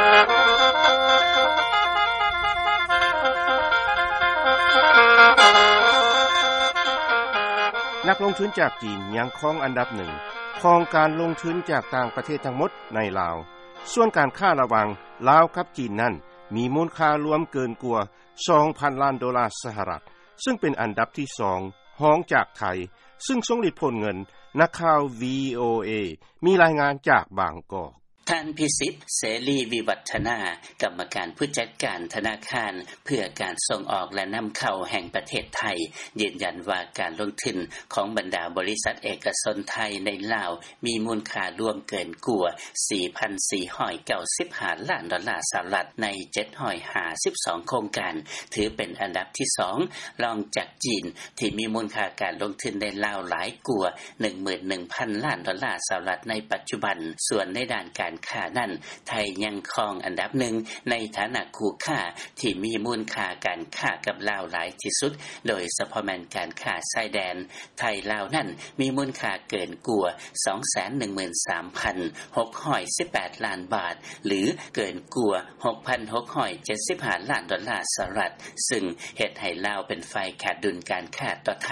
ນັກລົງທຶນຈາກຈີນຍັງຄອງອັນດັບໜຶ່ງຂອງການລົງທຶນຈາກຕ່າງປະເທດທັງໝົດໃນລາວ. ສ່ວນການຄ້າລະຫວ່າງລາວກັບຈີນນັ້ນ ມີມູນຄ່າລວມເກີນກວ່າ ສອງພັນລ້ານໂດລາສະຫະລັດ, ຊຶ່ງເປັນອັນດັບທີສອງ ຮອງຈາກໄທ, ຊຶ່ງຊົງລິດໂພນເງິນ. ນັກຂ່າວ ວີໂອເອ ມີລາຍງານຈາກບາງກອກ. ທ່ານ ພິສິດ ເສລີ ວິວັດທະນາ, ກຳມະການຜູ້ຈັດການທະນາຄານເພື່ອການສົ່ງອອກ ແລະ ນຳເຂົ້າແຫ່ງປະເທດໄທ ຢືນຢັນວ່າການລົງທຶນຂອງບັນດາບໍລິສັດເອກະຊົນໄທໃນລາວ ມີມູນຄ່າລວມເກີນກວ່າ ສີ່ພັນສີ່ຮ້ອຍເກົ້າສິບຫ້າລ້ານໂດລາສະຫະລັດ ໃນເຈັດຮ້ອຍຫ້າສິບສອງໂຄງການ, ຖືເປັນອັນດັບທີສອງ ລອງຈາກຈີນ ທີ່ມີມູນຄ່າການລົງທຶນໃນລາວຫຼາຍກວ່າ ໜຶ່ງໝື່ນໜຶ່ງພັນລ້ານໂດລາສະຫະລັດໃນປັດຈຸບັນ. ສ່ວນໃນດ້ານການຄ້ານັ້ນ, ໄທຍັງຄອງອັນດັບໜຶ່ງໃນຖານະຄູ່ຄ້າທີ່ມີມູນຄ່າການຄ້າກັບລາວຫຼາຍທີ່ສຸດ, ໂດຍສະເພາະແມ່ນການຄ້າຊາຍແດນ. ໄທ-ລາວນັ້ນມີມູນຄ່າເກີນກວ່າ ສອງແສນໜຶ່ງໝື່ນສາມພັນຫົກຮ້ອຍສິບແປດລ້ານບາດ ຫຼື ເກີນກວ່າ ຫົກພັນຫົກຮ້ອຍເຈັດສິບຫ້າລ້ານໂດລາສະຫະລັດ, ຊຶ່ງເຮັດໃຫ້ລາວເປັນຝ່າຍຂາດດຸນການຄ້າຕໍ່ໄທ,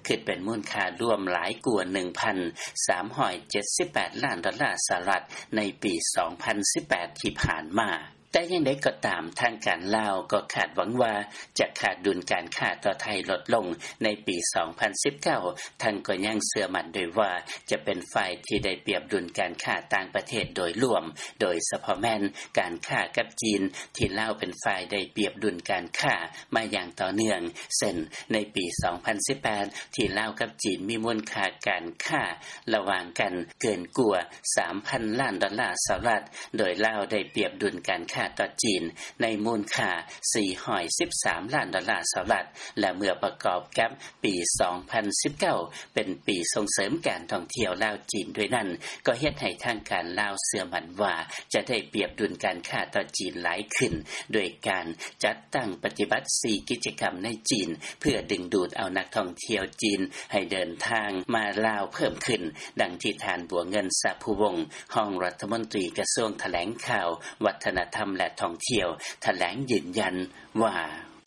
ຄິດເປັນມູນຄ່າລວມຫຼາຍກວ່າ ໜຶ່ງພັນສາມຮ້ອຍເຈັດສິບແປດລ້ານໂດລາສະຫະລັດ ໃນປີສອງພັນສິບແປດທີ່ຜ່ານມາ. ແຕ່ຢ່າງໃດກໍຕາມ, ທາງການລາວກໍຄາດຫວັງວ່າຈະຂາດດຸນການຄ້າຕໍ່ໄທລົດລົງໃນປີສອງພັນສິບເກົ້າ, ທັງກໍຍັງເຊື່ອໝັ້ນດ້ວຍວ່າຈະເປັນຝ່າຍທີ່ໄດ້ປຽບດຸນການຄ້າຕ່າງປະເທດໂດຍລວມ, ໂດຍສະເພາະແມ່ນການຄ້າກັບຈີນ ທີ່ລາວເປັນຝ່າຍໄດ້ປຽບດຸນການຄ້າມາຢ່າງຕໍ່ເນື່ອງ, ເຊັ່ນ ໃນປີສອງພັນສິບແປດ ທີ່ລາວກັບຈີນມີມູນຄ່າການຄ້າລະຫວ່າງກັນເກີນກວ່າ ສາມພັນລ້ານໂດລາສະຫະລັດ, ໂດຍລາວໄດ້ປຽບດຸນການຄ້າຕໍ່ຈີນໃນມູນຄ່າ ສີ່ຮ້ອຍສິບສາມລ້ານໂດລາສະຫະລັດ, ແລະ ເມື່ອປະກອບກັບປີສອງພັນສິບເກົ້າ ເປັນປີສົ່ງເສີມການທ່ອງທ່ຽວລາວ-ຈີນດ້ວຍນັ້ນ, ກໍເຮັດໃຫ້ທາງການລາວເຊື່ອໝັ້ນວ່າຈະໄດ້ປຽບດຸນການຄ້າຕໍ່ຈີນຫຼາຍຂຶ້ນ, ໂດຍການຈັດຕັ້ງປະຕິບັດ ສີ່ ກິດຈະກຳໃນຈີນ ເພື່ອດຶງດູດເອົານັກທ່ອງທ່ຽວຈີນໃຫ້ເດີນທາງມາລາວເພີ່ມຂຶ້ນ, ດັ່ງທີ່ທ່ານ ບົວເງິນ ສະພູວົງ ຮອງລັດຖະມົນຕີກະຊວງຖະແຫຼງຂ່າວ, ວັດທະນະທຳ ແລະ ທ່ອງທ່ຽວ ຖະແຫຼງຢືນຢັນວ່າ: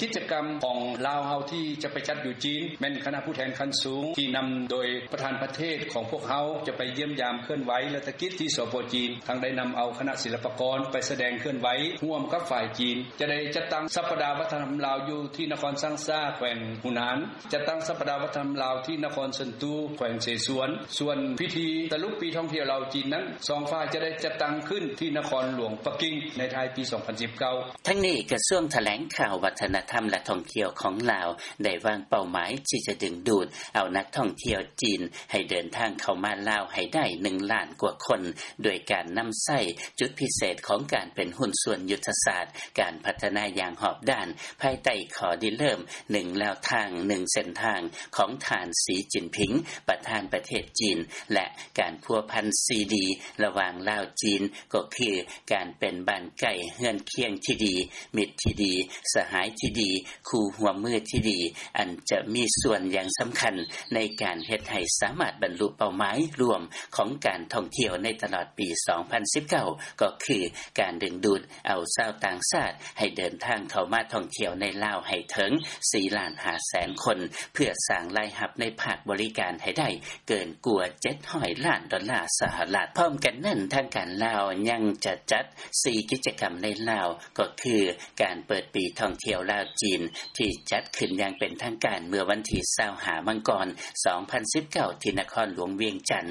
ກິດຈະກຳຂອງລາວເຮົາທີ່ຈະໄປຈັດຢູ່ຈີນ ແມ່ນຄະນະຜູ້ແທນຂັ້ນສູງທີ່ນຳໂດຍປະທານປະເທດຂອງພວກເຮົາ ຈະໄປຢ້ຽມຢາມເຄື່ອນໄຫວລັດຖະກິດທີ່ ສປ ຈີນ, ທັງໄດ້ນຳເອົາຄະນະສິລະປະກອນໄປສະແດງເຄື່ອນໄຫວຮ່ວມກັບຝ່າຍຈີນ. ຈະໄດ້ຈັດຕັ້ງສັບປະດາວັດທະນະທຳລາວຢູ່ທີ່ນະຄອນຊາງຊາ ແຂວງຫູນານ, ຈັດຕັ້ງສັບປະດາວັດທະນະທຳລາວທີ່ນະຄອນເຊິນຕູ ແຂວງເສສວນ. ສ່ວນພິທີສະຫຼຸບປີທ່ອງທ່ຽວລາວ-ຈີນນັ້ນ ສອງຝ່າຍຈະໄດ້ຈັດຕັ້ງຂຶ້ນທີ່ນະຄອນຫຼວງປັກກິ່ງ ໃນທ້າຍປີສອງພັນສິບເກົ້າ. ທັງນີ້, ກະຊວງຖະແຫຼງຂ່າວ, ວັດທະນະທຳ ແລະ ທ່ອງທ່ຽວຂອງລາວ ໄດ້ວາງເປົ້າໝາຍທີ່ຈະດຶງດູດເອົານັກທ່ອງທ່ຽວຈີນໃຫ້ເດີນທາງເຂົ້າມາລາວໃຫ້ໄດ້ ໜຶ່ງລ້ານກວ່າຄົນ, ໂດຍການນຳໃຊ້ຈຸດພິເສດຂອງການເປັນຫຸ້ນສ່ວນຍຸດທະສາດການພັດທະນາຢ່າງຮອບດ້ານ, ພາຍໃຕ້ຂໍ້ລິເລີ່ມ ໜຶ່ງແນວທາງ ໜຶ່ງເສັ້ນທາງ ຂອງທ່ານ ສີ ຈິນຜິງ ປະທານປະເທດຈີນ ແລະ ການພົວພັນ ສີ່ ດີ ລະຫວ່າງລາວ-ຈີນ ກໍຄື ການເປັນບ້ານໃກ້ເຮືອນຄຽງທີ່ດີ, ມິດທີ່ດີ, ສະຫາຍທີ່ດີ, ຄູ່ຮ່ວມມືທີ່ດີ, ອັນຈະມີສ່ວນຢ່າງສຳຄັນໃນການເຮັດໃຫ້ສາມາດບັນລຸເປົ້າໝາຍລວມຂອງການທ່ອງທ່ຽວໃນຕະຫຼອດປີສອງພັນສິບເກົ້າ ກໍຄືການດຶງດູດເອົາຊາວຕ່າງຊາດໃຫ້ເດີນທາງເຂົ້າມາທ່ອງທ່ຽວໃນລາວໃຫ້ເຖິງ ສີ່ລ້ານຫ້າແສນຄົນ ເພື່ອສ້າງລາຍຮັບໃນພາກບໍລິການໃຫ້ໄດ້ເກີນກວ່າ ເຈັດຮ້ອຍລ້ານໂດລາສະຫະລັດ. ພ້ອມກັນນັ້ນ, ທາງການລາວຍັງຈະຈັດ ສີ່ ກິດຈະກຳໃນລາວ ກໍຄື ການເປີດປີທ່ອງທ່ຽວລາວ-ຈີນ ທີ່ຈັດຂຶ້ນຢ່າງເປັນທາງການເມື່ອວັນທີຊາວຫ້າ ມັງກອນ ສອງພັນສິບເກົ້າ ທີ່ນະຄອນຫຼວງວຽງຈັນ,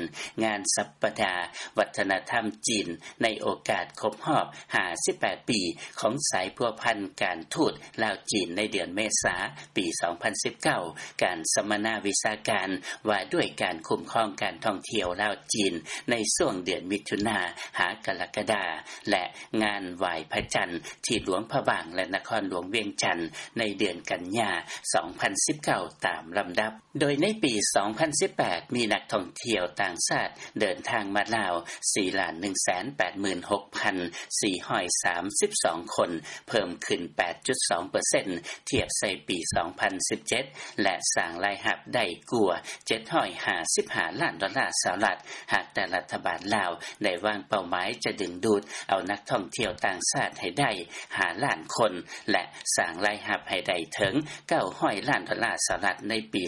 ງານສັບປະດາວັດທະນະທຳຈີນ ໃນໂອກາດຄົບຮອບ ຫ້າສິບແປດ ປີ ຂອງສາຍພົວພັນການທູດລາວ-ຈີນ ໃນເດືອນເມສາ ປີສອງພັນສິບເກົ້າ, ການສຳມະນາວິຊາການວ່າດ້ວຍການຄຸ້ມຄອງການທ່ອງທ່ຽວລາວ-ຈີນ ໃນຊ່ວງເດືອນມິຖຸນາ ຫາ ກະລະກະດາ ແລະ ງານໄຫວ້ພະຈັນທີ່ຫຼວງພະບາງ ແລະ ນະຄອນຫຼວງວຽງຈັນ ໃນເດືອນກັນຍາ ສອງພັນສິບເກົ້າ ຕາມລຳດັບ. ໂດຍໃນປີສອງພັນສິບແປດ ມີນັກທ່ອງທ່ຽວຕ່າງຊາດເດີນທາງມາລາວ ສີ່ລ້ານໜຶ່ງແສນແປດໝື່ນຫົກພັນສີ່ຮ້ອຍສາມສິບສອງຄົນ, ເພີ່ມຂຶ້ນ ແປດຈຸດສອງເປີເຊັນ ທຽບໃສ່ປີສອງພັນສິບເຈັດ ແລະ ສ້າງລາຍຮັບໄດ້ກວ່າ ເຈັດຮ້ອຍຫ້າສິບຫ້າລ້ານໂດລາສະຫະລັດ, ຫາກແຕ່ລັດຖະບານລາວໄດ້ວາງເປົ້າໝາຍ ຈະດຶງດູດເອົານັກທ່ອງທ່ຽວຕ່າງຊາດໃຫ້ໄດ້ ຫ້າລ້ານຄົນ ແລະ ສ້າງລາຍຮັບໃຫ້ໄດ້ເຖິງ 900 ລ້ານໂດລາສະຫະລັດ ໃນປີ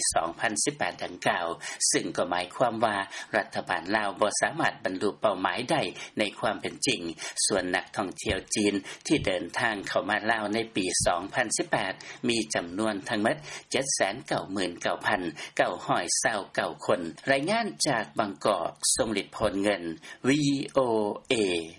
2018 ດັ່ງກ່າວ, ຊຶ່ງກໍໝາຍຄວາມວ່າ ລັດຖະບານລາວບໍ່ສາມາດບັນລຸເປົ້າໝາຍໄດ້ໃນຄວາມເປັນຈິງ. ສ່ວນນັກທ່ອງທ່ຽວຈີນທີ່ເດີນທາງເຂົ້າມາລາວໃນປີ 2018 ມີຈຳນວນທັງໝົດ 799,929 ຄົນ. ລາຍງານຈາກບາງກອກ, ຊົງລິດ ໂພນເງິນ VOA.